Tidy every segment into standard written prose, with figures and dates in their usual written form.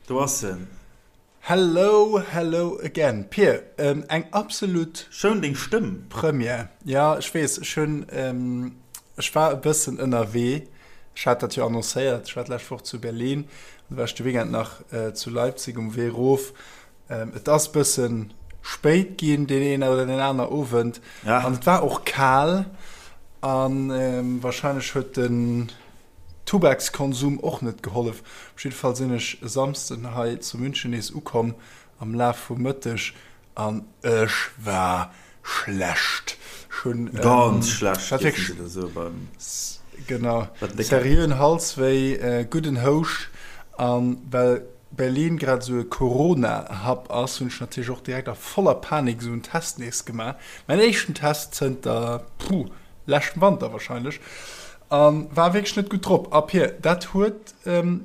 Do ass en. Hello, hello again. Pir, eng absolut. Schoun deng Stëmm. Première. Jo, ech weess, ech hunn, ech war e bëssen ënnerwee. Ech hat dat jo annoncéiert. Ech war d'lescht Woch zu Berlin, an du war ech de Weekend nach zu Leipzig um Wee erof. Et ass bëssen spéit ginn deen een oder deen aner Owend. An et war och kal. An wahrscheinlech huet den Tubakskonsum och net gehollef. Op jidde Fall sinn ech e Samsden hei zu München nees ukomm am Laf vum Mëtteg an ech war schlecht. Ech hunn Ganz schlecht, dierfen se da soe beim. Genau, seriöen Halswéi, gudden Houscht an well Berlin grad esou e Corona-Hub ass, hunn ech natierlech och direkt a voller Panik esou en Test nees gemaach. Mäin éischten Test zënter, puh, leschtem Wanter wahrscheinlech. An war wierklech net gutt drop. A Pir, dat huet. Jo,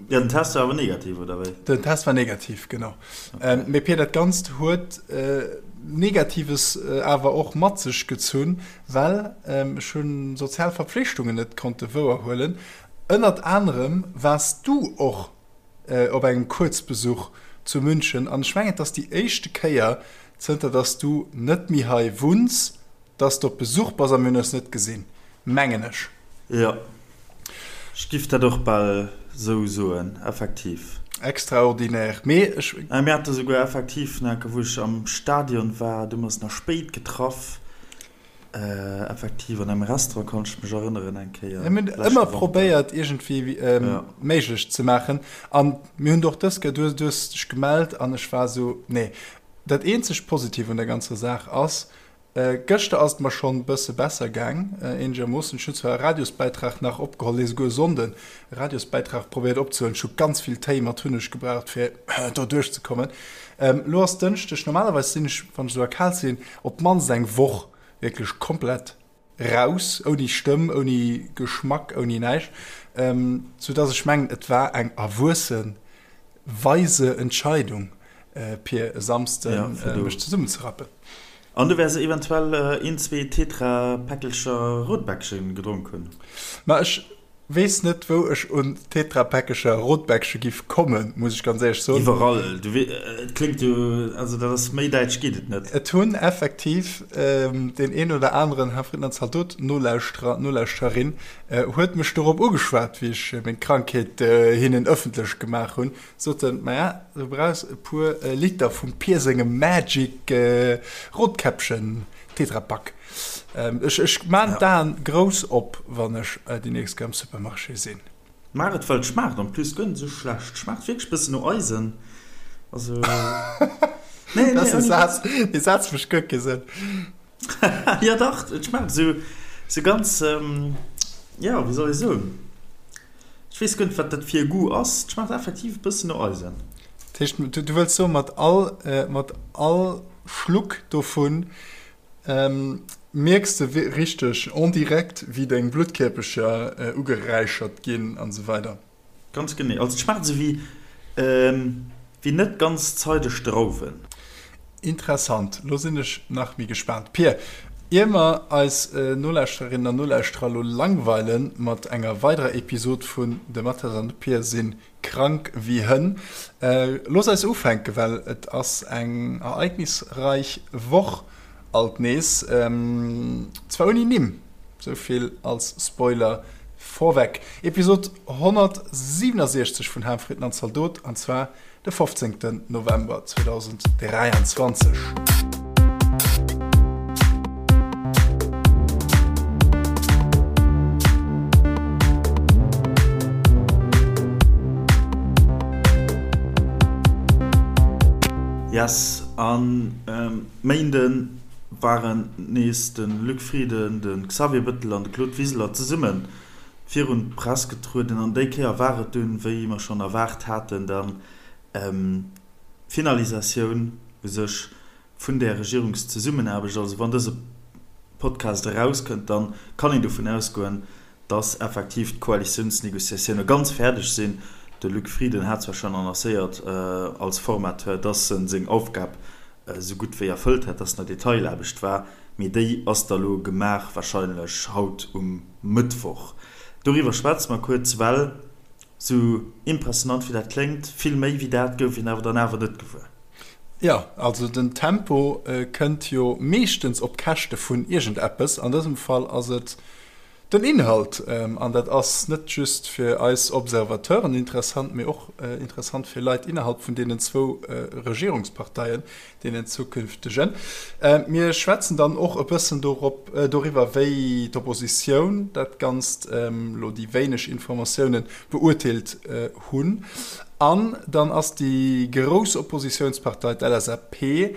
den Test war awer negativ, oder wéi? Den Test war negativ, genau. Mee Pir, dat Ganzt huet Negatives awer och mat sech gezunn, well ech hunn sozial Verpflichtungen net konnte wouerhuelen. Ënnert anerem waars du och op engem Kuerzbesuch zu München an ech mengen, et ass déi éischte Kéier, zënter dass du net méi hei wunns, Dass de op Besuch bass a mir hunn eis net gesinn, mengen ech. Jo, ech giff dat och bal sou soen, effektiv. Extraordinaire, mee ech. Mir hate souguer effektiv nach, wou ech am Stadion war, du mer eis nach spéit getraff, effektiv an engem Restaurant, kann ech mech erënneren, eng Kéier. Mir hunn ëmmer probéiert iergendwéi méiglech ze maachen an mir hunn och dës Kéier, du hues dech gemellt an ech war sou, nee. Dat eenzegt Positiv un der ganzer Saach ass, Gëschter ass et mer schonn bësse besser gaang, eenegermoossen. Ech hunn zwar e Radiosbäitrag nach opgeholl, nee souguer e Sonnden e Radiosbäitrag probéiert opzehuelen. Ech hu ganz vill Téi mat Hunneg gebraucht fir do duerchzekommen. Elo ass Dënschdeg, normalerweis sinn ech, wann ech esou erkaalt sinn, op d'mannst eng Woch wierklech komplett raus, ouni Stëmm, ouni Geschmack, ouni näischt, soudass ech mengen, et war eng erwuesse weise Entscheidung, Pir e Samsden mech zesummenzerappen. An du wäers eventuell een, zwee Tetra-Päckelcher Rotbäckchen gedronk hunn. Ma ech weess net, wou ech un Tetra-Päckelcher Rotbäckche giff kommen, muss ech ganz éierlech soen. Iwwerall. Du wee, et kléngt jo, also dat ass, méi däitsch geet et net. Et hunn effektiv deen een oder aneren Herr Frittenand Zaldot Nolauschterer, Nolauschtererin huet mech dorop ugeschwat, wéi ech meng Krankheet hinnen ëffentlech gemaach hunn. Soten, Maja, du brauchs e puer Liter vum Pier sengem Magic Rotkäppchen Tetrapack. Ech ech maan d'Aen grouss op, wann ech déi nächst Kéier am Supermarché sinn. Maach et, well et schmaacht en plus guer net esou schlecht. Schmaacht wierklech bëssen no Eisen. Also, nee, nee, ouni Witz. Dee Saz mécht guer kee Sënn. Jo dach, et schmaacht esou, esou ganz, jo, wéi soll ech soen? Ech weess guer net, wat dat fir e Goût ass. Et schmaacht effektiv e bëssen no Eisen. Dat heescht, du wëlls soen, mat all, mat all Schluck dovun mierks de richteg en direct, wéi deng Bluttkierpecher ugeräichert ginn an esou weider? Ganz genee. Also et schmaacht esou wéi, wéi net ganz zeideg Drauwen. Interessant, lo sinn ech nach méi gespaant. Pir, ier mer eis Nolauschtererinnen an Nolauschterer lo langweilen mat enger weiderer Episod vun De Mathias an de Pir si krank wéi Hënn, looss eis ufänken, well et ass eng ereignisreich Woch alt nees, zwar ouni Nimm. Sou vill als Spoiler vorweg. Episod 167 vun Ham, Fritten an Zaldot, an zwar de 15. November 2023. Yes, an Méinden waren nees de Luc Frieden, de Xavier Bettel an de Claude Wiseler zesumme virun d'Press getrueden. An déi Kéier war et dunn, wéi mer schonn erwaart haten, dann d'Finalisatioun u sech vun där Regierungszesummenaarbecht. Also wann dëse Podcast erauskënnt, da kann een dovun ausgoen, dass effektiv d'Koalitiounsnegociatioune ganz fäerdeg sinn. De Luc Frieden hat zwar schonn annoncéiert als Formateur, dass en seng Aufgab esou gutt wéi erfëllt hätt, dass nach Detailaarbecht war, mee déi ass da lo gemaach, warscheinlech haut um Mëttwoch. Doriwwer schwätze mer kuerz, well. Sou impressionant wéi dat kléngt, vill méi wéi dat gouf een awer dann awer net gewuer. Jo, also den Tempo kënnt jo meeschtens op Käschte vun iergendeppes. An dësem Fall ass et den Inhalt. An dat ass net just fir eis Observateuren interessant, mee och interessant fir Leit innerhalb vun deenen zwou Regierungsparteien, deenen zukünftegen. Mir schwätzen dann och e bëssen dorop, doriwwer, wéi d'Oppositioun dat Ganzt, elo déi wéineg Informatiounen, beurteelt hunn. An dann ass déi grouss Oppositiounspartei, d'LSAP,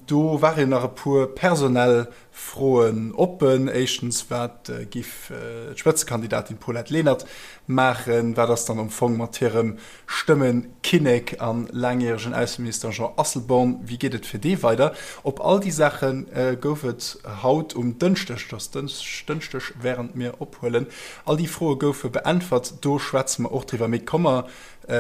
do ware jo nach e puer personell Froen oppen. Éischtens, wat giff d'Spëtzekandidatin Paulette Lenert maachen? Wat ass dann am Fong mat hirem Stëmmekinnek a laangjäregen Ausseminister Jean Asselborn? Wéi geet et fir dee weider? Op all déi Saache gouf et haut um Dënschdeg, et ass Dënschdeg wärend mir ophuelen, all déi Froe goufe beäntwert. Do schwätze mer och driwwer. Mee komm mer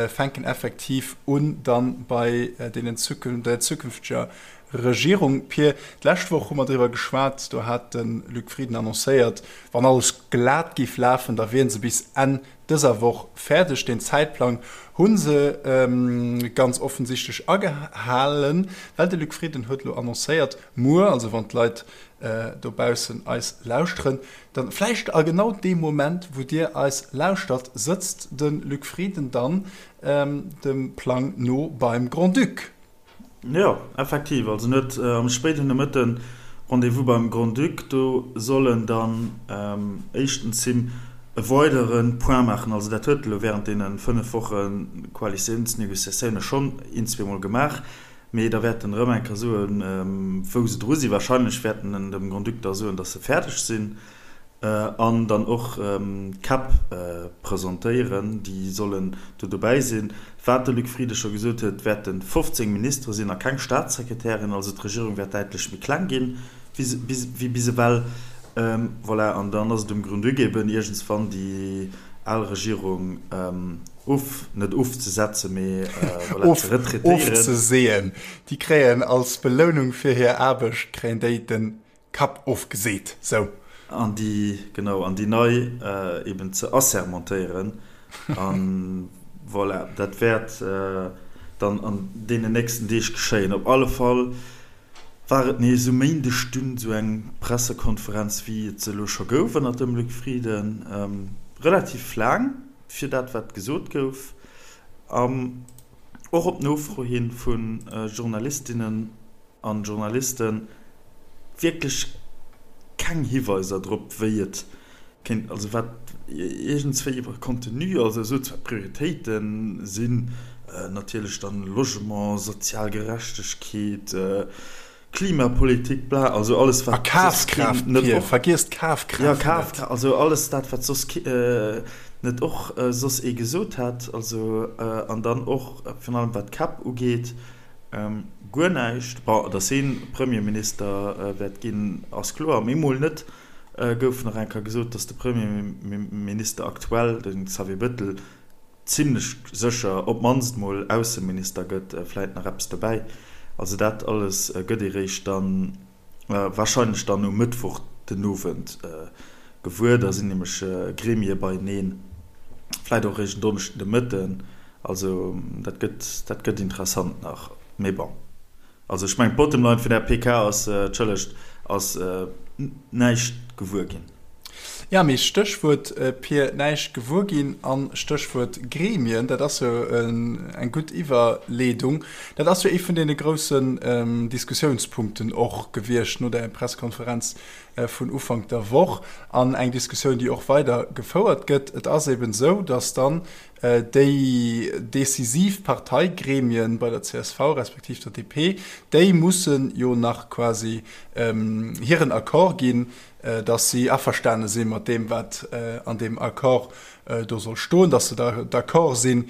fänken effektiv un dann bei deenen der zukünfteger Regierung. Pir, d'lescht Woch hu mer driwwer geschwat, do hat de Luc Frieden annoncéiert, wann alles glat géif lafen, da wieren se bis Enn dëser Woch fäerdeg. Deen Zäitplang hu se ganz offensichtlech agehalen, well de Luc Frieden huet elo annoncéiert, muer, also wann d'Leit dobaussen eis lauschteren, dann vläicht a genau deem Moment, wou Dir eis lauschtert, sëtzt de Luc Frieden dann dem Plang no beim Grand-Duc. Jo, effektiv. Also en huet am spéiden Nomëtte Rendez-vous beim Grand-Duc. Do soll en dann éischtens him e weidere Point maachen. Also dat huet e lo während deene 5 Woche Koalitiounsnegociatioune schonn een, zweemol gemaach. Mee da wäert en erëm eng Kéier soen, wou se dru sinn. Wahrscheinlech wäert en dem Grand-Duc da soen, datt se fäerdeg sinn. An dann och d'Käpp presentéieren, déi sollen do dobäi sinn. Wat de Luc Frieden scho gesot huet, wäerte 15 Ministere sinn a keng Staatssekretären. Also d'Regierung wäert däitlech méi kleng ginn wéi bis ewell. Voilà, an dann ass et um Grand-Duc eben iergendswann déi al Regierung of, net ofzesetzen, mee voilà, ze retraitéieren. Ofzeseeën. Déi kréien als Belounung fir hir Aarbecht, kréien déi den Kapp ofgeseet, sou. An déi, genau, an déi nei eben ze assermentéieren. A voilà, dat wäert dann an deenen nächsten Deeg geschéien. Op alle Fall war et nees um Méindeg dunn esou eng Pressekonferenz, wéi et se elo scho gouf ënnert dem Luc Frieden. Relativ laang fir dat, wat gesot gouf. An och op Nofro hi vu Journalistinnen an Journalisten wierklech keng Hiweiser drop, wéi et kéint, also wat iergendswéi iwwer Contenu, also esou zwar d'Prioritéite sinn natierlech dann Logement, sozial Gerechtegkeet, Klimapolitik, bla, also alles wat A soss keen Kafkraaft, net Pir, och, vergiess d'Kafkraaft ja, net. Kafkraaft, also alles dat wat soss ke net och soss ee gesot hätt, also an dann och virun allem wat d'Käpp ugeet, Guer näischt. Bon, datt hie Premierminister wäert ginn, ass kloer. Mee mol net gouf nach eng Kéier gesot, datt de Premierminister aktuell, de Xavier Bettel, zimlech sécher op d'mannst mol Ausseminister gëtt, vläit nach eppes dobäi. Also dat alles gëtt ee réischt dann Warscheinlech dann um Mëttwoch den Owend gewuer. Da sinn nämlech Gremie beieneen, vläit och eréischt en Donneschden de Mëtten. Also dat gëtt, dat gëtt interessant nach. Mee bon, also ech mengen d'Bottom line vun där PK ass, entschëllegt, ass näischt gewuer ginn. Jo, mee Stéchwuert Pir, näischt gewuer ginn an Stéchwuert Gremien, dat ass jo eng gutt Iwwerleedung. Dat ass jo ee vun deene groussen Diskussiounspunkten och gewiescht no der Pressekonferenz vun Ufank der Woch an eng Diskussioun, déi och weider gefouert gëtt. Et ass eben esou, datt dann déi decisiv Parteigremien bei der csv respektiv der DP, déi mussen jo nach quasi hiren Accord ginn, dass si averstane si mat deem, wat an deem Accord do soll stoen, dass se d'accord sinn,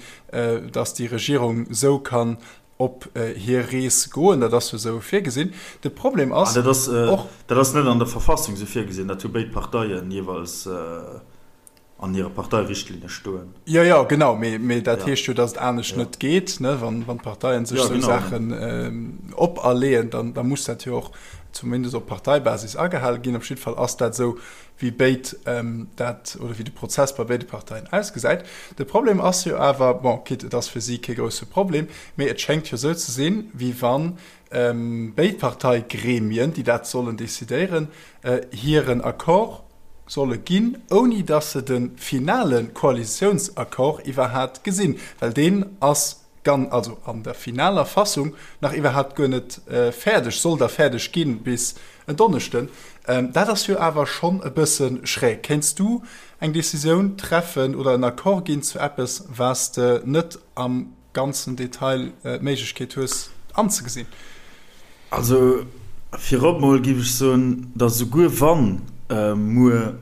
dass déi Regierung esou kann op hir Rees goen. Dat ass jo esou virgesinn. De Problem ass och. Dat ass net an der Verfassung esou virgesinn. Dat hu béid Parteien jeeweils an hire Parteirichtlinne stoen. Jo, jo, genau, mee dat heescht jo, datt et anescht net geet, ne? Wann d'Parteien sech esou Saachen operleeën, dann da muss dat jo och. zumindest op Parteibasis agehale ginn. Op jidde Fall ass dat esou, wéi béid dat, oder wéi de Prozess bei béide Parteien ausgesäit. De Problem ass jo awer, bon, quitte et ass fir si kee grousse Problem, mee et schéngt jo esou ze sinn, wéi wann béid Parteigremien, déi dat sollen decidéieren, hiren Accord solle ginn, ouni datt se de finale Koalitiounsaccord iwwerhat gesinn, well deen ass gan, also an der finaler Fassung nach iwwerhaapt guer net fäerdeg, soll da fäerdeg ginn bis en Donneschden. Dat ass jo awer schonn e bësse schräg. Kéints du eng Decisioun treffen oder en Accord ginn zu eppes, wat s de net am ganzen Detail d'Méiglechkeet hues anzegesinn? Also virop mol géif ech soen, datt esouguer wann muer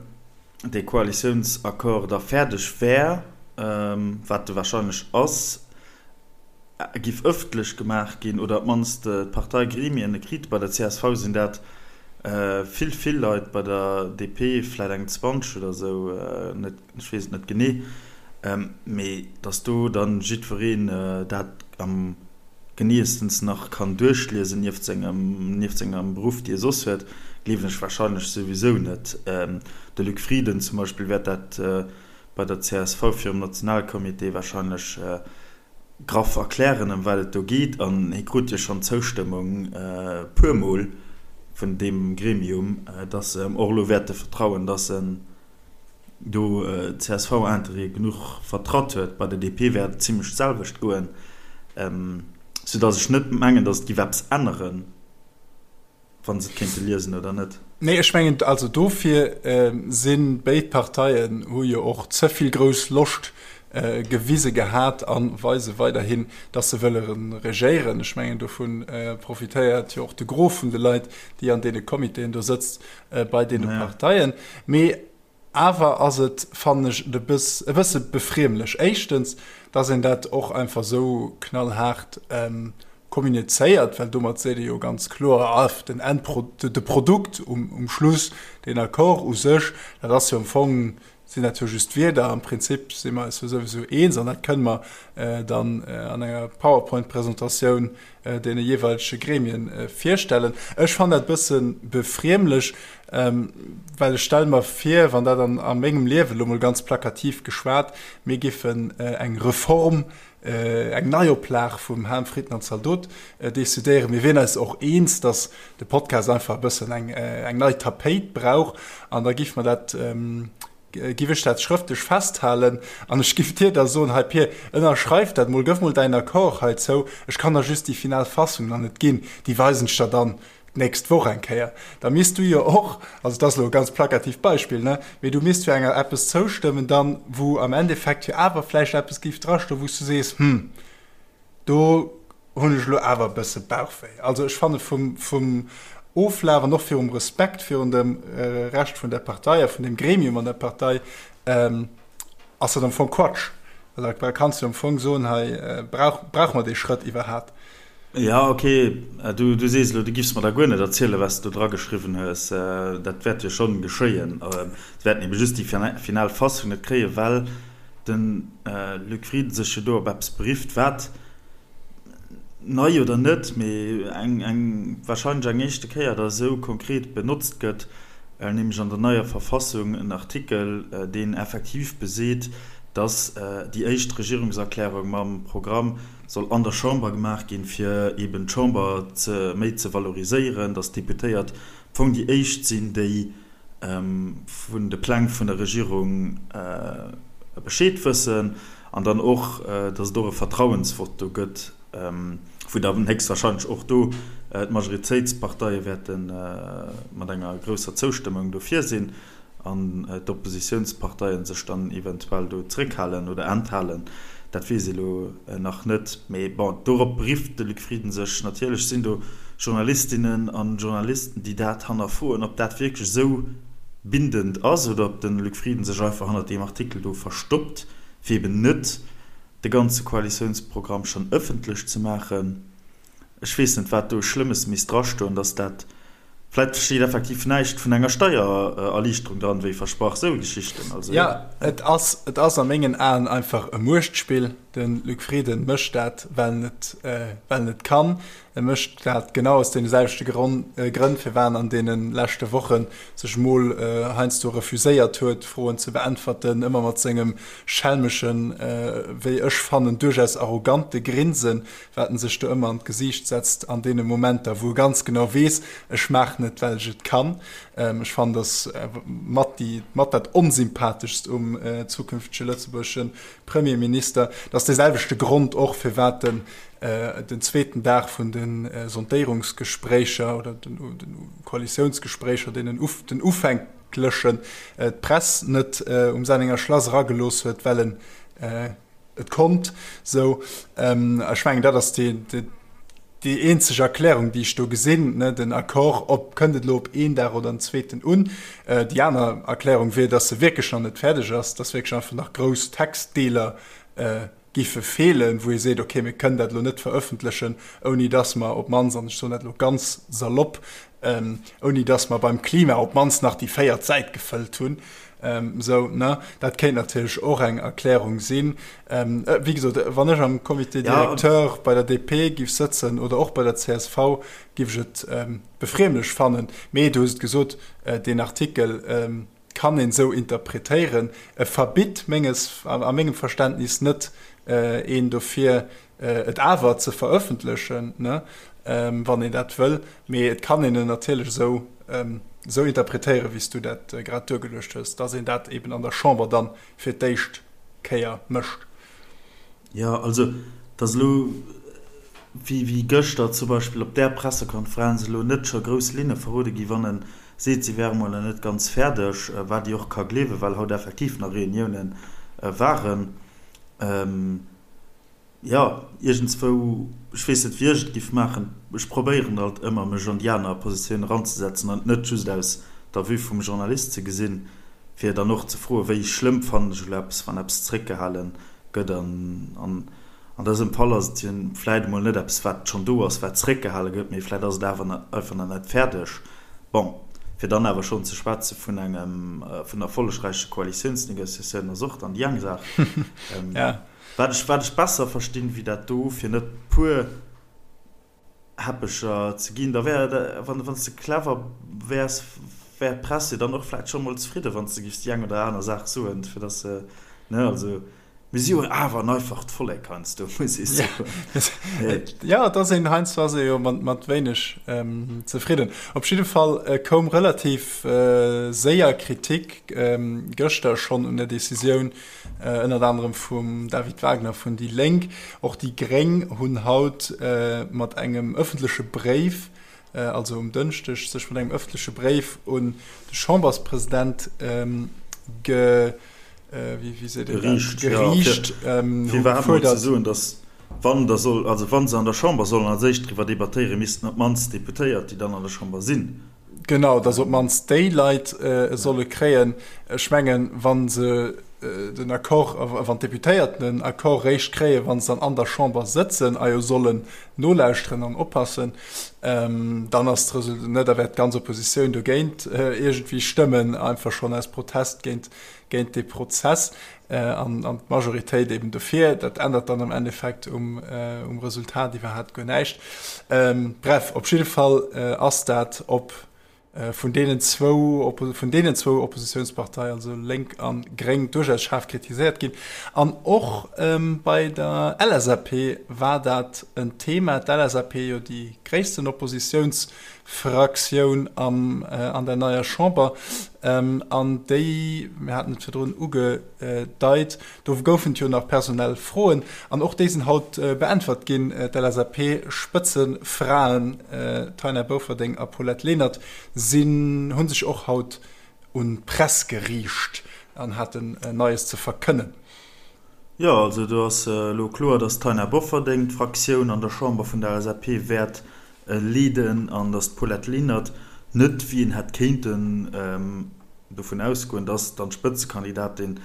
dee Koalitiounsaccord da fäerdeg wär, wat e wahrscheinlech ass, giff ëffentlech gemaach ginn, oder op d'mannst d'Parteigremien e kritt. Bei der csv sinn dat vill, vill Leit, bei der DP vläit eng 20 oder esou, net, ech weess et net genee, mee datt do dann jiddwereen dat am geneeëstens nach kann duerchliesen, nieft sengem, nieft sengem Beruff, dee e soss huet, gleewen ech wahrscheinlech souwisou net. De Luc Frieden zum Beispill wäert dat bei der csv virum Nationalcomité wahrscheinlech graff erklären, ëm wat et do geet, an hie krut jo schonn d'Zoustëmmung puermol vun deem Gremium, dass se em och elo wäerte vertrauen, dass en do d'CSV-Interêtë genuch vertratt huet. Bei der DP wäert et zimlech d'selwecht goen, soudass ech net mengen, dass et giff eppes änneren, wa se et kéinte liesen oder net. Nee, ech mengen, also dofir si béid Parteien hu jo och ze vill grouss Loscht gewise gehat a weise weiderhin, dass se wëlle regéieren. Ech mengen, dovu profitéiert jo och de Gros vun de Leit, déi an deene Comitéen do sëtzt, bei deene Parteien. Mee awer ass et, fannen ech, e bësse befriemlech. Éischtens, dass een dat och einfach esou knallhaart kommunizéiert, well domat seet ee jo ganz kloer, ah, den Endpro-, de Produkt um Schluss, deen Accord u sech, dat ass jo am Fong, sinn dat jo just Wierder. Am Prinzip si mer eis jo souwisou eens an dat kënne mer dann an enger PowerPoint-Presentatioun deene jeeweilege Gremien virstellen. Ech fannen dat e bësse befriemlech, well ech stelle mer vir, wann dat an a mengem Liewen, elo mol ganz plakativ geschwat, mir giffen eng Reform, eng Neioplag vum Ham, Fritten an Zaldot decidéieren, mir wieren eis och eens, datt de Podcast einfach e bëssen eng nei Tapéit brauch an da giffe mer dat, Giff ech dat schrëftlech festhalen an ech giff dir da soen, hei Pir, ënnerschreif dat mol, gëff mol däin Accord heizou, ech kann der just déi final Fassung nach net ginn, déi weisen ech der dann d'nächst Woch eng Kéier. Da misst du jo och, also dat ass elo e ganz plakatiivt Beispill, ne, mee du misst jo enger eppes zoustëmmen dann, wou am Endeffekt jo awer vläicht eppes giff drastoen, wou s du sees, hm, Do hunn ech elo awer e bësse Bauchwéi. Also ech fanne vum, vum Oflaf an och virum Respekt virun dem Rescht vun der Partei a vun dem Gremium an der Partei, ass dat am Fong Quatsch. Well da kanns du am Fong soen, hei brauch, brauche mer dee Schrëtt iwwerhat? Jo, ok, du, du sees elo, du giffs mer da guer net erzielen, wat s de do drageschriwwen hues. Dat wäert jo schonn geschéien. Se wäerten ebe just déi final Fassung net kréien, well de Luc Frieden sech jo do op eppes berifft, wat, nei oder net, mee eng, eng, wahrscheinlech eng éischte Kéier da esou konkret benotzt gëtt, nämlech an der neier Verfassung en Artikel, deen effektiv beseet, dass déi éischt Regierungserklärung mam Programm soll an der Chamber gemaach ginn, fir eben d'Chamber ze, méi ze valoriséieren, dass d'Deputéiert am Fong déi éischt sinn, déi vun de Pläng vun der Regierung Bescheed wëssen an dann och, datt et och e Vertrauensvott do gëtt, wou dann héchstwahrscheinlech och do d'Majoritéitsparteie wäerte mat enger grousser Zoustëmmung dofir sinn an d'Oppositiounsparteie sech dann eventuell do zréckhalen oder enthalen. Dat weess ee lo nach net. Mee bon, dorop berifft de Luc Frieden sech. Natierlech sinn do Journalistinnen an Journalisten, déi dat hannerfroen, ob dat wierklech esou bindend ass oder ob de Luc Frieden sech einfach hannert deem Artikel do verstoppt, fir eben net de ganze Koalitiounsprogramm schonn ëffentlech ze maachen. Ech weess net, wat do Schlëmmes misst drastoen, dass dat, vläicht steet effektiv näischt vun enger Steiererliichterung dran, wéi versprach, sou Geschichten. Also jo. Jo, et ass, et ass a mengen Aen einfach e Muechtspill. De Luc Frieden mécht dat, well en et, well en et kann. E mécht dat genau aus deene selwechte Grënn, firwat en an deene leschte Woche sech mol heiansdo refuséiert huet, Froen ze beäntwerten, ëmmer mat sengem schelmeschen, wéi ech fannen, duerchaus arrogante Grinsen, wat en sech do ëmmer an d'Gesiicht setzt an deene Momenter, wou e ganz genau weess, ech maachen et, well ech et kann. Ech fannen, dass mat déi, mat dat Onsympatheschst um zukünftege lëtzebuergesche Premierminister. Dat ass dee selwechte Grond och, firwat en den zweeten Dag vun de Sondéierungsgespréicher oder den Koalitiounsgespréicher, deenen den ufänklechen, d'Press net um Sennenger Schlass eragelooss huet, well en et konnt. Sou, ech mengen, dat ass déi eenzeg Erklärung, déi ech do gesinn, den Accord, ob kënnt et elo op een Dag oder en zweeten un. Déi aner Erklärung wier, datt se wierklech nach net fäerdeg ass, datt wierklech einfach nach grouss Textdeeler giffe feelen, wou ee seet, okay, mir kënnen dat elo net verëffentlechen, ouni datt mer op d'mannst, an ech soen dat elo ganz salopp, ouni datt mer beim Klima op d'mannst nach déi véiert Säit gefëllt hunn. Esou, ne? Dat kéint natierlech och eng Erklärung sinn. Wéi gesot, wann ech am Comité directeur bei der DP giff sëtzen oder och bei der csv, giff ech et befriemlech fannen. Mee du hues et gesot, deen Artikel kann een esou interpretéieren. E verbitt menges, a mengem Verständnis net een dofir, et awer ze verëffentlechen, ne, wann een dat wëll. Mee et kann een en natierlech esou, esou interpretéieren, wéi s du dat grad duergeluecht hues, dass een dat eben an der Chamber dann fir d'éischt Kéier mécht. Jo, also, dass elo, wéi, wéi gëschter zum Beispill op där Pressekonferenz elo net scho grouss Linne verrode gi wann e seet, si wäre mol nach net ganz fäerdeg, wat ee och ka gleewen, well haut effektiv nach Reuniounen waren. Jo, iergendswou, ech weess net wéi ech et giff maachen, ech probéieren alt ëmmer mech an déi aner Positioun eranzesetzen an et net just aus der Vue vum Journalist ze gesinn, fir dann och ze froen, wéi schlëmm fannen ech elo eppes, wann eppes zréckgehale gëtt. An an dësem Fall ass et jo vläit emol net eppes wat schonn do ass, wat zréckgehale gëtt, mee vläit ass et awer einfach nach net fäerdeg. Bon, fir dann awer schonn ze schwätze vun engem vun erfollegräiche Koalitiounsnegociatiounen ass och dann déi eng Saach. Wat ech, wat ech besser verstinn wéi dat do, fir net puer Häppecher ze ginn, da wär, wann, wann s de clever wäers, wär d'Press jo dann och vläicht scho mol zefridden, wann s de giffs déi eng oder aner Saach soen, fir dass se, ne, also mir si jo awer en einfacht Vollek heiansdo, muss ee soen. Jo, et ass een, heiansdo ass ee jo mat, mat wéineg zefridden. Op jidde Fall koum relativ séier Kritik gëschter schonn un der Decisioun, ënnert anerem vum David Wagner vun déi Lénk. Och déi Gréng hunn haut mat engem ëffentleche Bréif, also um Dënschdeg, sech mat engem ëffentleche Bréif un de Chamberspresident ge, wéi seet een dat? Geriicht, hu gefuerdert. Fir datt wann da soll, also wa se an der Chamber sollen als éischt driwwer debattéieren, missten op d'mannst d'Deputéiert, déi dann an der Chamber sinn, Genau, datt op d'mannst déi Leit e solle kréien. Ech mengen, wa se den Accord, wann d'Deputéierten den Accord réischt kréien, wa se dann an der Chamber sëtzen a jo sollen nolauschteren an oppassen, dann ass d'Resultat, ne, da wäert d'ganz Oppositioun dogéint iergendwéi stëmmen, einfach schonn aus Protest géint, géint dee Prozess an, an d'Majoritéit eben dofir. Dat ännert dann am Endeffekt um, um Resultat iwwerhaapt guer näischt. Bref, op jidde Fall ass dat op vun deenen zwou, vun deenen zwou Oppositiounsparteien, also Lénk a Gréng, duerchaus schaarf kritiséiert ginn. An och bei der LSAP war dat en Thema. D'LSAP, jo déi gréissten Oppositiouns Fraktioun am, an der neier Chamber. An déi, mir haten et virdrun ugedeit, do goufen et jo nach personell Froen an och déi sinn haut beäntwert ginn. D'LSAP-Spëtzefraen Taina Bofferding a Paulette Lenert sinn, hu sech och haut un d'Press geriicht an haten Neies ze verkënnen. Jo, also do ass elo kloer, datt d'Taina Bofferding d'Fraktioun an der Chamber vun der LSAP wäert leeden an datt d'Paulette Lenert net, wéi een hätt kéinten dovun ausgoen, datt dann d'Spëtzekandidatin,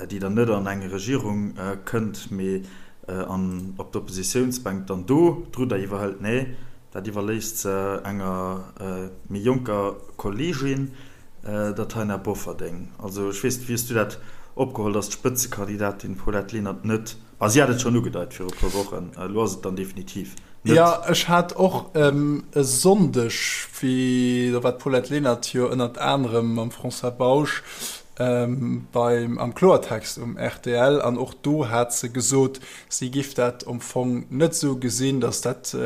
déi dann net an eng Regierung kënnt, mee an op d'Oppositiounsbänk dann do d'Rudder iwwerhëlt. Nee, dat iwwerléisst se enger méi jonker Kolleegin, der Taina Bofferding. Also ech weess net, wéi hues du dat opgeholl, datt d'Spëtzekandidatin Paulette Lenert net. A si hat et schonn ugedeit viru e puer Wochen, elo ass et dann definitiv net. Jo, ech hat och e Sonndeg, wéi, do war d'Paulette Lenert jo ënnert anerem mam François Bausch beim am Kloertext um rtl, an och do hat se gesot, si giff dat am Fong net esou gesinn, datt dat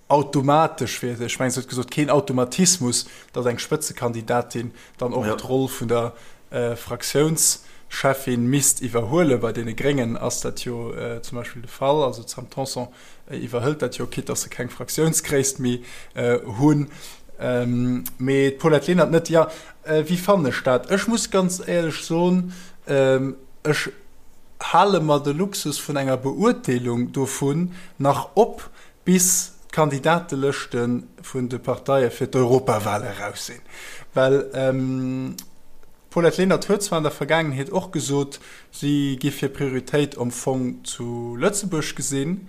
automatesch wier, ech mengen, se huet gesot, keen Automatismus, datt eng Spëtzekandidatin dann och d'Roll vun der Fraktiounscheffin misst iwwerhuelen. Bei deene Gréngen ass dat jo zum Beispill de Fall. Also d'Sam Tanson iwwerhëlt dat jo, quitte datt se keng Fraktiounsgréisst méi hunn. Mee d'Paulette Lenert net. Jo, wéi fannen ech dat? Ech muss ganz éierlech soen, ech hale mer de Luxus vun enger Beurteelung dovun nach op, bis d'Kandidatelëschte vun de Parteie fir d'Europawale eraus sinn. Well d'Paulette Lenert huet zwar an der Vergaangenheet och gesot, si giff hir Prioritéit am Fong zu Lëtzebuerg gesinn.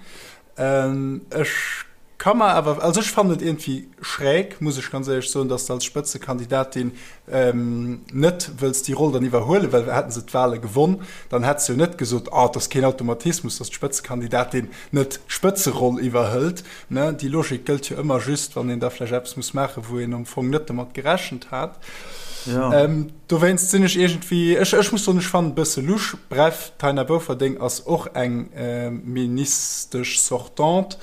Ech ka mer awer, also ech fannen et iergendwéi schräg, muss ech ganz éierlech soen, datt se als Spëtzekandidatin net wëlls déi Roll dann iwwerhuelen, well hätten se d'Wale gewonn, dann hätt se jo net gesot, ah, et ass keen Automatismus, datt d'Spëtzekandidatin net d'Spëtzeroll iwwerhëlt. Ne, déi Logik gëllt jo ëmmer just, wann een da vläicht eppes muss maachen, wou een am Fong net domat gerechent hat. Ja. Dowéinst sinn ech iergendwéi, ech, ech muss soen, ech fannen et e bësse lusch. Bref, d'Taina Bouferdeng ass och eng Ministesch sortante,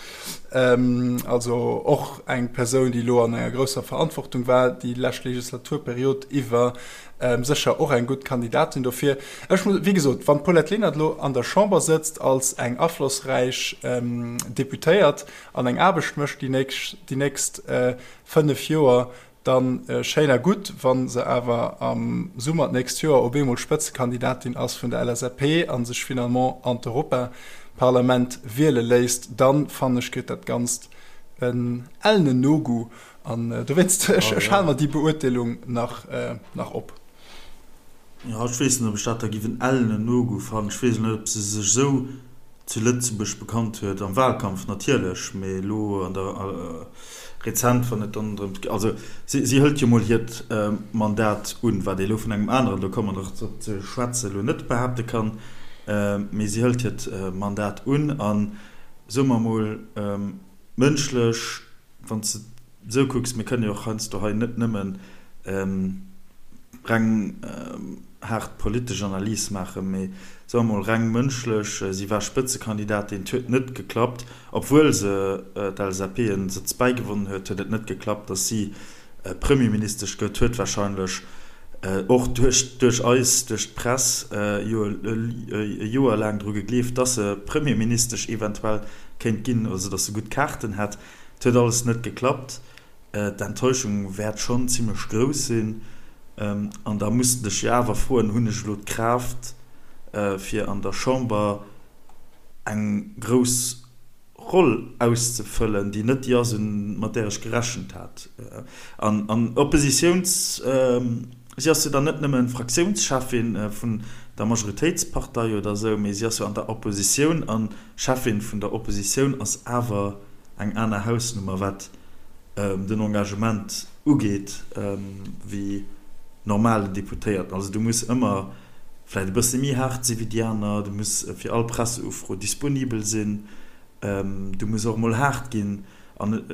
also och eng Persoun, déi elo an enger grousser Verantwortung war déi lescht Legislaturperiod iwwer, sécher och eng gutt Kandidatin dofir. Ech muss, wéi gesot, wann d'Paulette Lenert elo an der Chamber sëtzt als eng aflossräich Deputéiert an eng Aarbecht mécht déi nächst, déi nächst 5 Joer, Dann schéin a gutt, wa se awer am Summer d'nächst Joer op eemol Spëtzekandidatin ass vun der LSAP a sech finalement an d'Europaparlament wiele léisst, dann, fannen ech, kritt dat Ganzt en ellenen Nogoût. An dowéinst, ech hale mer déi Beurteelung nach op. Jo, ech weess net, ob ech dat da giff en ellenen Nogoût fannen. Ech weess net, ob se sech esou zu Lëtzebuerg bekannt huet, am Wahlkampf natierlech, mee elo an der rezent, wann et dann drëms geet, also si si hëlt jo mol hiert Mandat un, wat ee elo vun engem aneren, do komme mer nach drop ze schwätzen, elo net behaapte kann, mee si hëlt hiert Mandat un a soe mer mol mënschlech, wann s de esou kucks, mir kënnen jo och heiansdo hei net nëmmen reng haart politesch Analys maachen, mee soe mer mol reng mënschlech, si war Spëtzekandidatin, et huet net geklappt, obwuel se d'LSAP en Sëtz bäigewonnen huet, huet et net geklappt, datt si Premierministesch gëtt, huet warscheinlech och duerch duerch eis, duerch d'Press jo e Joer laang dru gegleeft, datt se Premierministesch eventuell kéint ginn, also datt se gutt Kaarten hätt. Et huet alles net geklappt. D'Enttäuschung wäert schonn zimmlech grouss sinn. An da muss de dech jo awer froen, Hunn ech elo d'Kraaft, fir an der Chamber eng grouss Roll auszefëllen, déi net déi ass, mat där ech gerechent hat? An Oppositiouns, si ass jo dann net nëmme Fraktiounscheffin vun der Majoritéitspartei oder esou, mee si ass jo an der Oppositioun a Cheffin vun der Oppositioun ass awer eng aner Hausnummer, wat den Engagement ugeet, wéi normalen Deputéierten. Also du muss ëmmer vläicht e bësse méi haart si wéi déi aner, du muss fir all Presseufro disponibel sinn, du muss och emol haart ginn. An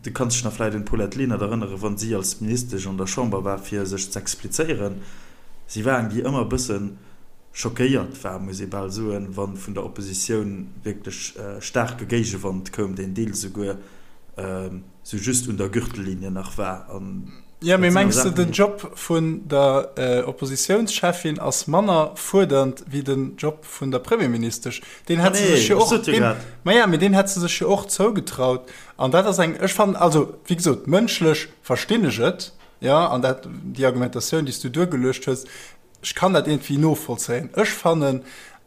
du kanns dech nach vläicht un d'Paulette Lenert erënneren, wa si als Ministesch an der Chamber war, fir sech z'explizéieren. Si war eng, déi ëmmer e bësse schockéiert war, muss ee bal soen, wa vun der Oppositioun wierklech staarke Géigewand koum, deen deels esouguer sou just un der Gürtellinie nach war. An Jo, mee mengs de, den Job vun der Oppositiounscheffin ass manner fuerdernd wéi den Job vun der Premierministesch? Deen hätt se sech jo och, deen, ma ja, mee deen hätt se sech jo och zougetraut. An dat ass eng, ech fannen, also wéi gesot, mënschlech verstinn ech et, jo, an dat, déi Argumentatioun, déi s du duergeluecht hues, Ech kann dat iergendwéi novollzéien. Ech fannen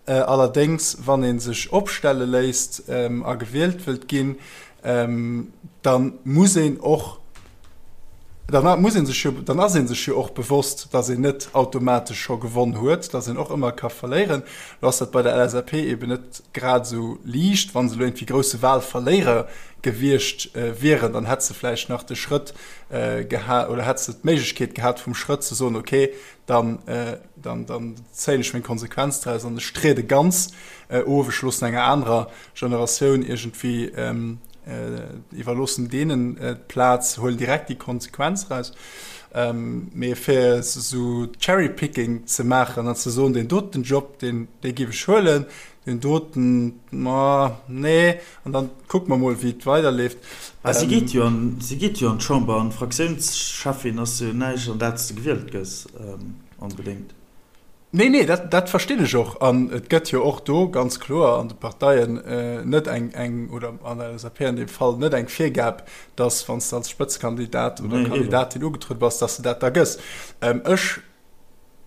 allerdéngs, wann ee sech opstelle léisst a gewielt wëllt ginn, da muss een och. Dann muss ee sech jo, dann ass ee sech jo och bewosst, datt een net automatesch scho gewonn huet, datt een och ëmmer ka verléieren. Lo ass dat bei der LSAP eben net grad esou liicht. Wa se elo iergendwéi grousse Wahlverléierer gewiescht wieren, dann hätt se vläicht nach de Schrëtt gehat oder hätt se d'Méiglechkeet gehat vum Schrëtt ze soen, okay, dann, dann, dann zéien ech meng Konsequenz draus an ech triede ganz of, ech loossen enger anerer Generatioun iergendwéi iwwerloossen deenen d'Plaz, huelen direkt déi Konsequenz eraus. Mee fir esou Cherry-picking ze maachen an ze soen, deen doten Job, deen, dee géif ech huelen, deen doten, ma nee, an dann kucke mer mol, wéi et weiderleeft. Mä si geet jo an, si geet jo an d'Chamber an Fraktiounscheffin ass jo näischt, an dat s de gewielt gëss, onbedéngt. Nee, nee, dat, dat verstinn ech och. An et gëtt jo och do ganz kloer an de Parteien net eng, eng, oder an der LSAP an deem Fall, net eng Virgab, dass, wann s de als Spëtzekandidat oder Kandidatin ugetruede bass, dass de dat da gëss. Ech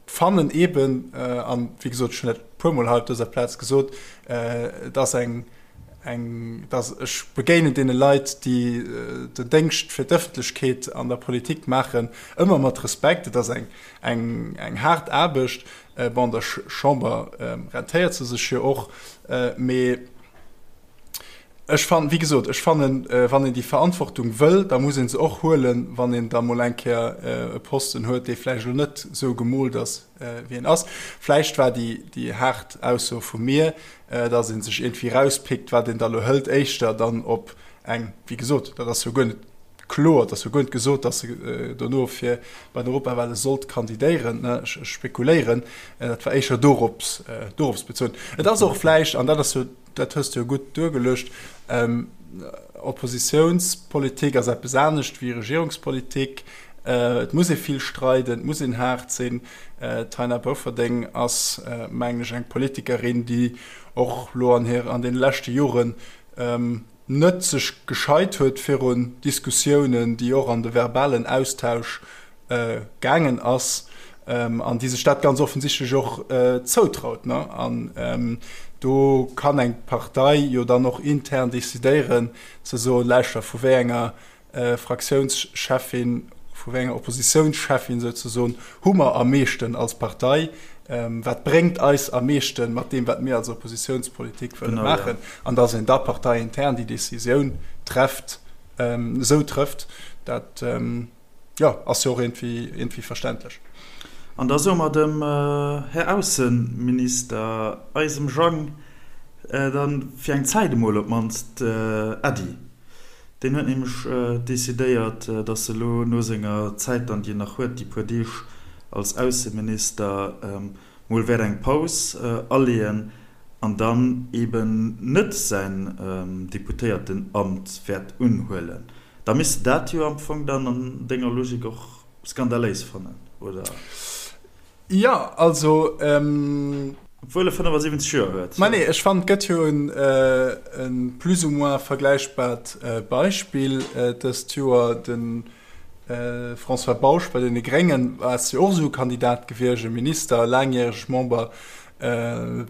fannen eeben, an wéi gesot, ech hunn dat e puermol hei op dëser Plaz gesot, et ass eng, eng, dass ech begéinen deene Leit, déi den Déngscht fir d'Ëffentlechkeet an der Politik maachen, ëmmer mat Respekt. Et ass eng, eng, eng haart Aarbecht. Bon, an der Chamber rentéiert se sech jo och, mee ech fannen, wéi gesot, ech fannen, wann een déi Verantwortung wëll, da muss ee se och huelen, wann een da mol eng Kéier e Posten huet, dee vläicht elo net esou gemoolt ass, wéi en ass. Vläicht war déi, déi haart Ausso vu mir, dass ee sech iergendwéi erauspickt, wat een da elo hëlt, éischter dann op eng, wéi gesot, dat ass jo guer net kloer, et ass jo guer net gesot, dass se dono fir bei den Europawale sollt kandidéieren, ech spekuléieren, dat war éischer dorops, dorops bezunn. Et ass och vläicht, an dat ass jo, dat hues de jo gutt duergeluecht, Oppositiounspolitik ass eppes anescht wéi Regierungspolitik. Et muss ee vill streiden, et muss een haart sinn. D'Taina Bofferding ass, mengen ech, eng Politikerin, déi och elo an hir, an deene leschte Joren net sech gescheit huet virun Diskussiounen, déi och an de verbalen Austausch gaangen ass an déi sech dat ganz offensichtlech och zoutraut. An do kann eng Partei jo dann och intern decidéieren ze soen, Lauschter, vu wéi enger Fraktiounscheffin, vu wéi enger Oppositiounscheffin souzesoen, hu mer am meeschten als Partei, wat bréngt eis am meeschten mat deem, wat mir als Oppositiounspolitik wëlle maachen, an datt een da parteiintern déi Decisioun trefft, esou trëfft, dat jo, ass jo och iergendwéi verständlech. An da soe mer dem Här Ausseminister, eisem Jang, dann fir eng Zäit emol op d'mannst Äddi. Deen huet nämlech decidéiert, datt e lo no senger Zäit dann, déi en nach huet, déi puer Deeg als Ausseminister, mol wäert eng Paus aleeën an dann eben net säin Deputéiertenamt wäert unhuelen. Da misst de dat jo am Fong dann an denger Logik och skandaléis fannen, oder? Jo, also. Obwuel e 75 Joer huet. Mä nee, ech fannen, et gëtt jo e plus ou moins vergläichbart Beispill dëst Joer. De François Bausch bei deene Gréngen ass jo och esou e Kandidat gewiescht, e Minister, laangjäreg Member,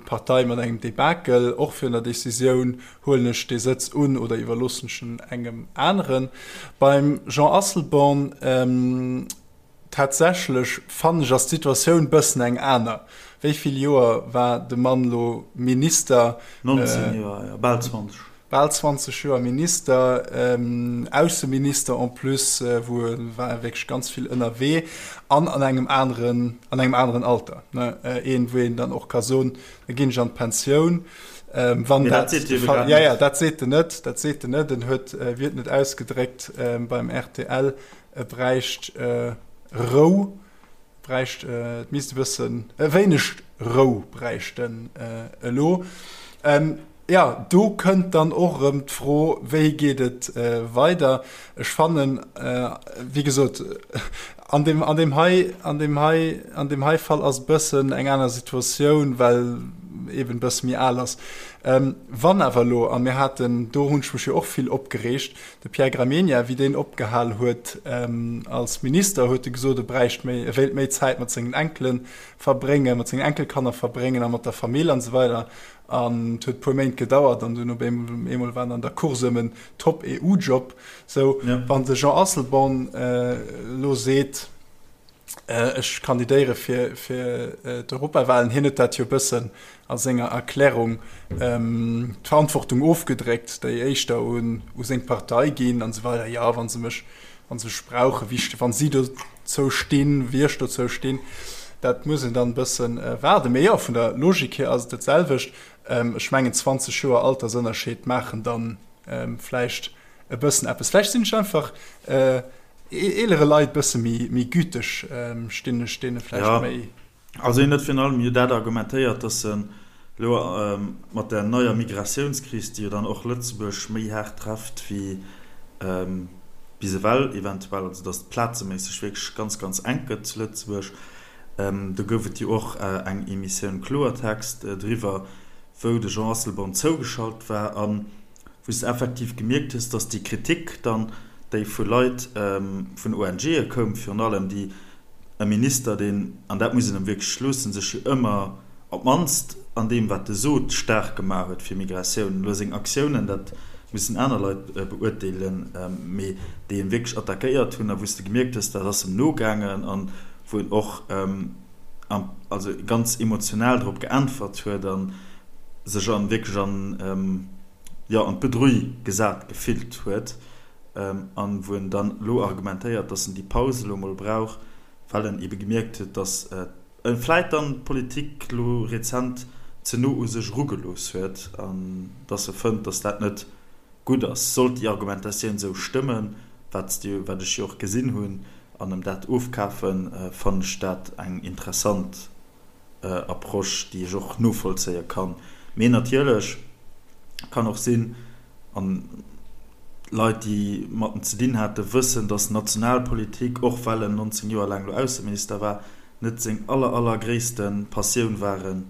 Partei mat engem Debakel, och virun der Decisioun, Huelen ech dee Sëtz un oder iwwerloossen ech en engem aneren? Beim Jean Asselborn. Tatsächlech fannen ech ass d'Situatioun bëssen eng aner. Wéi vill Joer war de Mann lo Minister? 19 Joer, jo, bal 20. Bal 20 Joer Minister, Ausseminister en plus, wou e war wierklech ganz vill ënnerwee an an engem aneren, an engem aneren Alter, ne? Een, wou een dann och ka soen, da ginn ech an d'Pensioun. Wann dat de Fall, ja, ja, dat seet en net, dat seet en net. En huet, wéi huet en et ausgedréckt beim rtl, E bräicht Rou, bräicht, et misst e bëssen, e wéineg Rou bräicht en elo. Jo, do kënnt dann och erëm d'Fro, wéi geet et weider? Ech fannen, wéi gesot, an deem, an deem hei, an deem hei, an deem hei Fall ass e bëssen eng aner Situatioun, well. eben e bësse méi al ass. Wann awer elo, a mir haten, do hunn ech mech jo och vill opgereegt, de Pierre Gramegna, wéi deen opgehal huet als Minister, huet e gesot, e bräicht méi, e wéilt méi Zäit mat sengen Enkele verbréngen, mat sengen Enkelkanner verbréngen a mat der Famill an esou weider. An et huet e puer Méint gedauert an dunn op eemol war en an der Course ëm en Top-EU-Job. Sou, wann de Jean Asselborn elo seet, ech kandidéiere fir d'Europawahlen, hien huet dat jo e bëssen a senger Erklärung d'Verantwortung ofgedréckt, déi éischter u seng Partei ginn an esou weider, jo, wa se mech, wa se mech brauchen, wéi ech, wa si dozou stinn, wéi ech dozou stinn, dat muss een dann e bësse waarden. Mee jo, vun der Logik hier ass et dat selwecht. Ech mengen 20 Joer Altersënnerscheed maachen dann vläicht e bëssen eppes. Vläicht sinn ech einfach eelere Leit bësse méi güteg, stinn ech deene vläicht méi. Also hien huet virun allem jo dat argumentéiert, datt en elo mat der neier Migratiounskris, déi jo dann och Lëtzebuerg méi haart trefft wéi bis ewell eventuell, also datt et plazeméisseg wierklech ganz, ganz enk gëtt zu Lëtzebuerg, do gouf et jo och eng Emissioun Kloertext driwwer, wou de Jean Asselborn zougeschalt war a wou s de effektiv gemierkt hues, datt déi Kritik dann, déi vu Leit, vun ONGe koum virun allem, déi E Minister, deen, an dat muss een em wierklech loossen, sech jo ëmmer, op d'mannst an deem wat e sot, staark gemaach huet fir Migratioun. Elo seng Aktiounen, dat mussen aner Leit beurteelen, mee déi en wierklech attackéiert hunn a wou s de gemierkt hues, dat ass em nogaangen an wou en och also ganz emotional drop geäntwert huet a sech an wierklech an, jo, an d'Bedrull gesat gefillt huet. An wou en dann elo argumentéiert, dass en déi Paus elo emol brauch, well en ebe gemierkt huet, dass e vläit dann d'Politik elo rezent ze no u sech erugelooss huet an dass e fënnt, dass dat net gutt ass. Sollt déi Argumentatioun esou stëmmen, wat wat ech jo och gesinn hunn, an em dat ofkafen, fannen ech dat eng interessant Approche, déi ech och novollzéie kann. Mee natierlech kann och sinn, an Leit, déi mat en ze dinn haten, wëssen, datt Nationalpolitik, och well en 19 Joer laang elo Ausseminister war, net seng aller, allergréisste Passioun waren,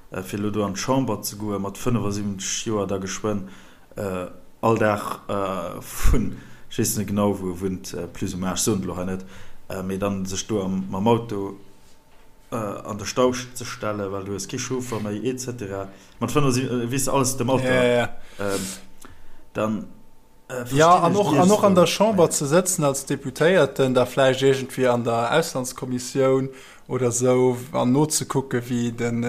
fir elo do an d'Chamber ze goen, mat 75 Joer da geschwënn all Dag vun, ech weess net genau, wou e wunnt, plus ou moins, ech soen et elo hei net, mee dann sech do mam Auto an de Stau ze stellen, well du hues kee Chauffer méi, et cetera. Mat 75, weess de, alles dem Alter. Ja, ja. Dann verstinn ja, an och, an och an der Chamber ze sëtzen als Deputéierten, da vläicht iergendwéi an der Auslandskommissioun oder sou, an nozekucke wéi den,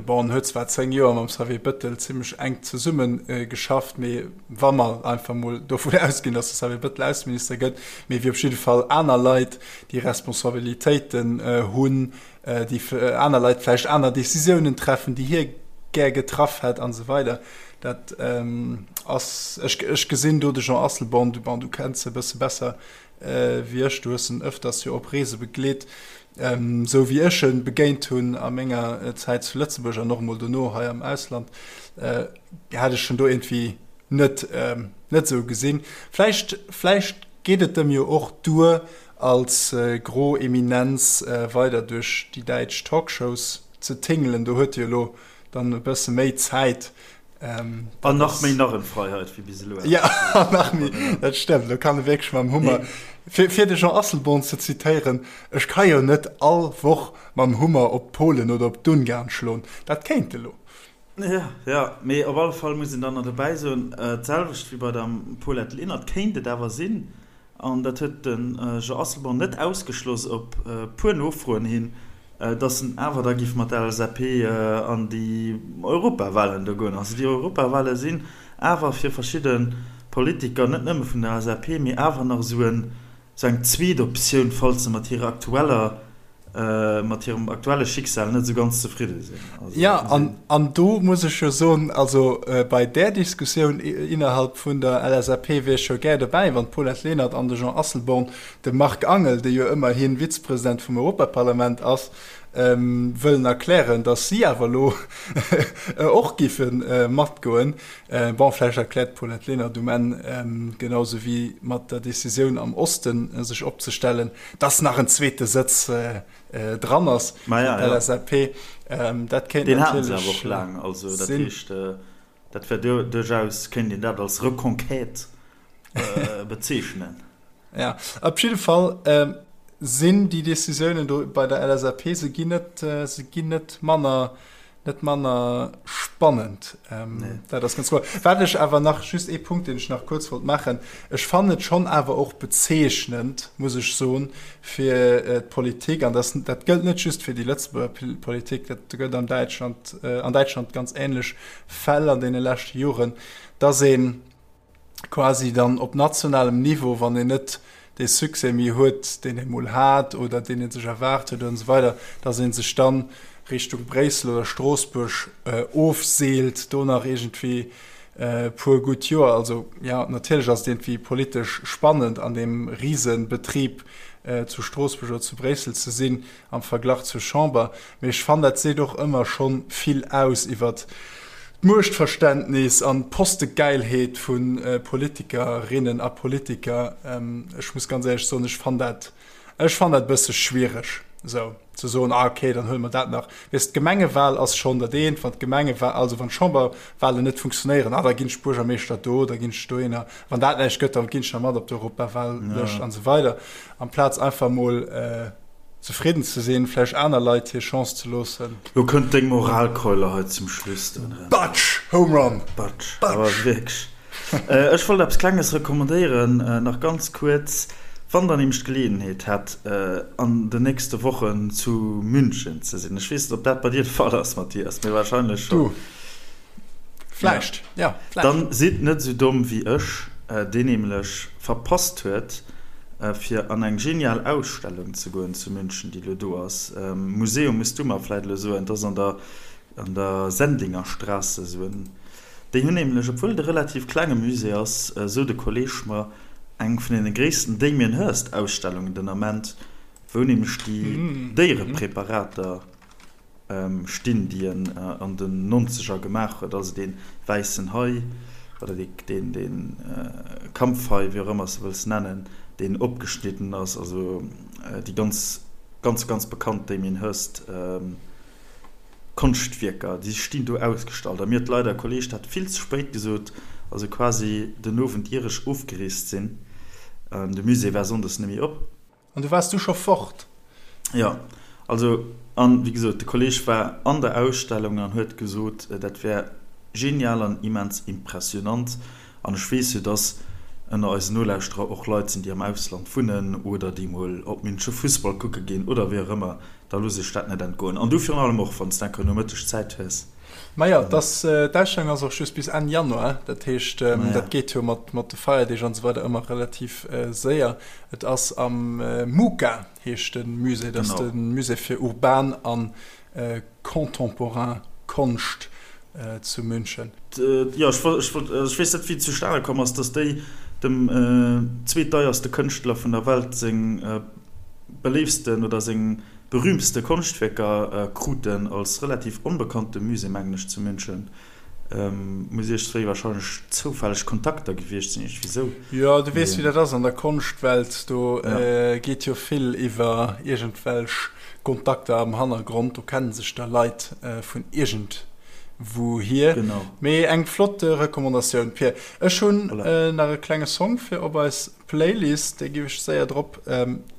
bon, en huet zwar 10 Joer mam Xavier Bëttel zimmlech enk zesumme geschafft, mee wa mer einfach mol dovun ausginn, datt de Xavier Bëttel Ausseminister gëtt, mee wéi op jidde Fall aner Leit, déi Responsabilitéiten hunn, déi aner Leit vläicht aner Décisiounen treffen, déi hie gär getraff hätt an esou weider. Dat ass, ech, ech gesinn do de Jean Asselborn, du, bon, du kenns e bësse besser wéi ech, du hues en ëfters jo op Reese begleet, esou wéi ech e begéint hunn a menger Zäit zu Lëtzebuerg an och emol dono hei am Ausland, hat ech en do iergendwéi net, net esou gesinn. Vläicht, vläicht geet et em jo och duer, als gro Eminenz weider duerch déi däitsch Talkshows ze tingelen. Do huet e jo elo dann e bësse méi Zäit. An nach méi Narrenfreiheit wéi bis elo. Jo, an nach méi, dat stëmmt. Elo kann e wierklech mam Hummer, fir de Jean Asselborn ze zitéieren, Ech ka jo net all Woch mam Hummer op d'Polen oder op d'Ungarn schloen. Dat kéint e lo. Jo, jo, mee op alle Fall muss een dann nach dobäi soen, d'selwecht wéi bei der Paulette Lenert kéint et awer sinn, an dat huet de Jean Asselborn net ausgeschloss op e puer Nofroen hin, datt en awer da géif mat der LSAP an déi Europawahlen do goen. Also déi Europawahlen sinn awer fir verschidde Politiker, net nëmme vun der LSAP, mee awer nach esou en Sou eng zweet Optioun, falls se mat hirer aktueller, mat hirem aktuelle Schicksal net esou ganz zefridde sinn. Also, Ja, an, an do muss ech jo soen, also bei där Diskussioun innerhalb vun der LSAP wier ech jo gär dobäi, wann d'Paulette Lenert an de Jean Asselborn de Marc Angel, dee jo ëmmerhi Vizepresident vum Europaparlament ass, wëllen erklären, datt si awer elo och giffe matgoen. Bon, vläicht erkläert d'Paulette Lenert um Enn, genau sou wéi mat der Decisioun am Osten sech opzestellen, datt nach en zweete Sëtz dran ass fir d'LSAP. Dat kéint Deen haten se awer och laang. Also dat heescht, dat wär duerchaus, kéint een dat als Reconquête bezeechnen. Ja, op jidde Fall sinn déi Decisiounen do bei der LSAP, se ginn net, se ginn net manner, net manner spannend. Nee. Dat ass ganz kloer. Wat ech awer nach, just ee Punkt, deen ech nach kuerz wollt maachen, Ech fannen et schonn awer och bezeechnend, muss ech soen, fir d'Politik, an dat, dat gëllt net just fir déi Lëtzebuerger Politik, dat gëtt an Däitschland, an Däitschland ganz ähnlech Fäll an deene leschte Joren, dass een, quasi dann op nationalem Niveau, wann een net dee Succès méi huet, deen ee mol hat oder deen ee sech erwaart huet an esou weider, dass ee sech dann Richtung Bréissel oder Stroossbuerg ofseelt, do nach iergendwéi e puer gutt Joer. Also jo, natierlech ass et iergendwéi politesch spannend an deem Risebetrib zu Stroossbuerg oder zu Bréissel ze sinn, am Verglach zur Chamber, mee ech fannen dat seet och ëmmer schonn vill aus iwwert d'Muechtverständnis an d'Postegeilheet vu Politikerinnen a Politiker. Ech muss ganz éierlech soen, ech fann dat, ech fann dat e bësse schwiereg esou ze soen, ah okay, dann huele mer dat nach. Weess, d'Gemengewal ass schonn dat eent, wann d'Gemengewa-, also wann d'Chamberwalen net funktionéieren, ah da ginn ech Buergermeeschter do, da ginn ech dohinner, wann dat näischt gëtt, da ginn ech nach mat op d'Europawallëscht an esou weider, amplaz einfach mol Zefridden ze sinn, vläicht aner Leit hir Chance ze loossen. Lo kënnt deng Moralkeule hei zum Schluss dann erëm. Batsch! Home Run! Batsch! Awer wierklech. Ech wollt eppes Klenges recommandéieren, nach ganz kuerz, Wann der nämlech d'Geleeënheet hätt, an den nächste Wochen zu München ze sinn, ech weess net, ob dat bei dir de Fall ass, Mathias, mee wahrscheinlech schonn. Du, vläicht, jo, vläicht. Dann sidd net esou domm wéi ech, deen nämlech verpasst huet, fir an eng genial Ausstellung ze goen zu München, déi elo do ass. Museum muss du mer vläit elo soen, et ass an der an der Sendlingerstraße esou en. Déi hunn nämlech, obwuel et e relativ klenge Musée ass, esou de Kolleeg mer, eng vun deene gréissten Damien Hirst Ausstellungen den Ament, wou nämlech déi Déierepräparater, stinn, déi en an den Nonzeger gemaach huet, also dee wäissen Hai oder dee Kampfhai, wéi och ëmmer s de wëlls nennen, deen opgeschnidden ass, also déi ganz, ganz, ganz bekannt Damien Hirst Konschtwierker, déi stinn do ausgestallt. A mir huet leider e Kolleeg dat vill ze spéit gesot, also quasi den Owend ier ech ofgereest sinn, de Musée war sonndes net méi op. An du waars du scho fort? Jo, also, an wéi gesot, de Kolleg war an der Ausstellung an huet gesot, dat wär genial an immens impressionant. An ech weess jo, dass ënner eisen Nolauschterer och Leit sinn, déi am Ausland wunnen oder déi mol op Münche Fussball kucke ginn oder wéi och ëmmer. Da looss ech dat net entgoen. An du virun allem och, wann s de enker Nomëtteg Zäit hues. Majo, dass, d'Ausstellung ass och just bis Enn Januar, dat heescht, dat geet jo mat de Feierdeeg an esou weider ëmmer relativ séier. Et ass am MUCA, heescht de Musée, dat ass de Musée fir urban a contemporain Konscht zu München. Jo, ech wollt, ech weess net wéi et zustane komm ass, dass déi dem zweetdeierste Kënschtler vun der Welt seng beléiftsten oder seng berühmtste Konschtwierker kruten, als relativ onbekannte Musée, mengen ech, zu München. Muss iergstwéi wahrscheinlech zoufälleg Kontakter gewiescht sinn, iergendwéi sou. Jo, du weess, wéi dat ass an der Konschtwelt, do geet jo vill iwwer iergendwelch Kontakter am Hannergrond, do kenne sech da Leit vun iergendwouhier. Genau. Mee eng flott Recommandatioun, Pir. Ech hunn nach e klenge Song fir op eis Playlist, déi giff ech séier drop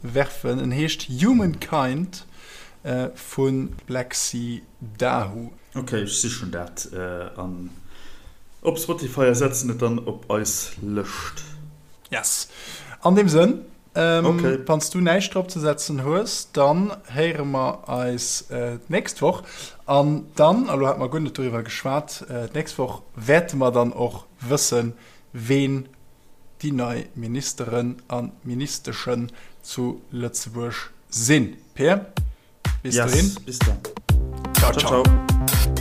werfen. En heescht Humankind vu Black Sea Dahu. Ok, ech sichen dat an op Spotify a setzen et dann op eis Lëscht. Yes. An deem Sënn, wann s du näischt drop ze setzen hues, dann héiere mer eis d'nächst Woch. An dann, a lo hate mer guer net doriwwer geschwat, d'nächst Woch wäerte mer dann och wëssen, ween déi nei Ministeren a Ministeschen zu Lëtzebuerg sinn. Peer, bis dohin. Yes, bis dann. Ciao, ciao. Ciao.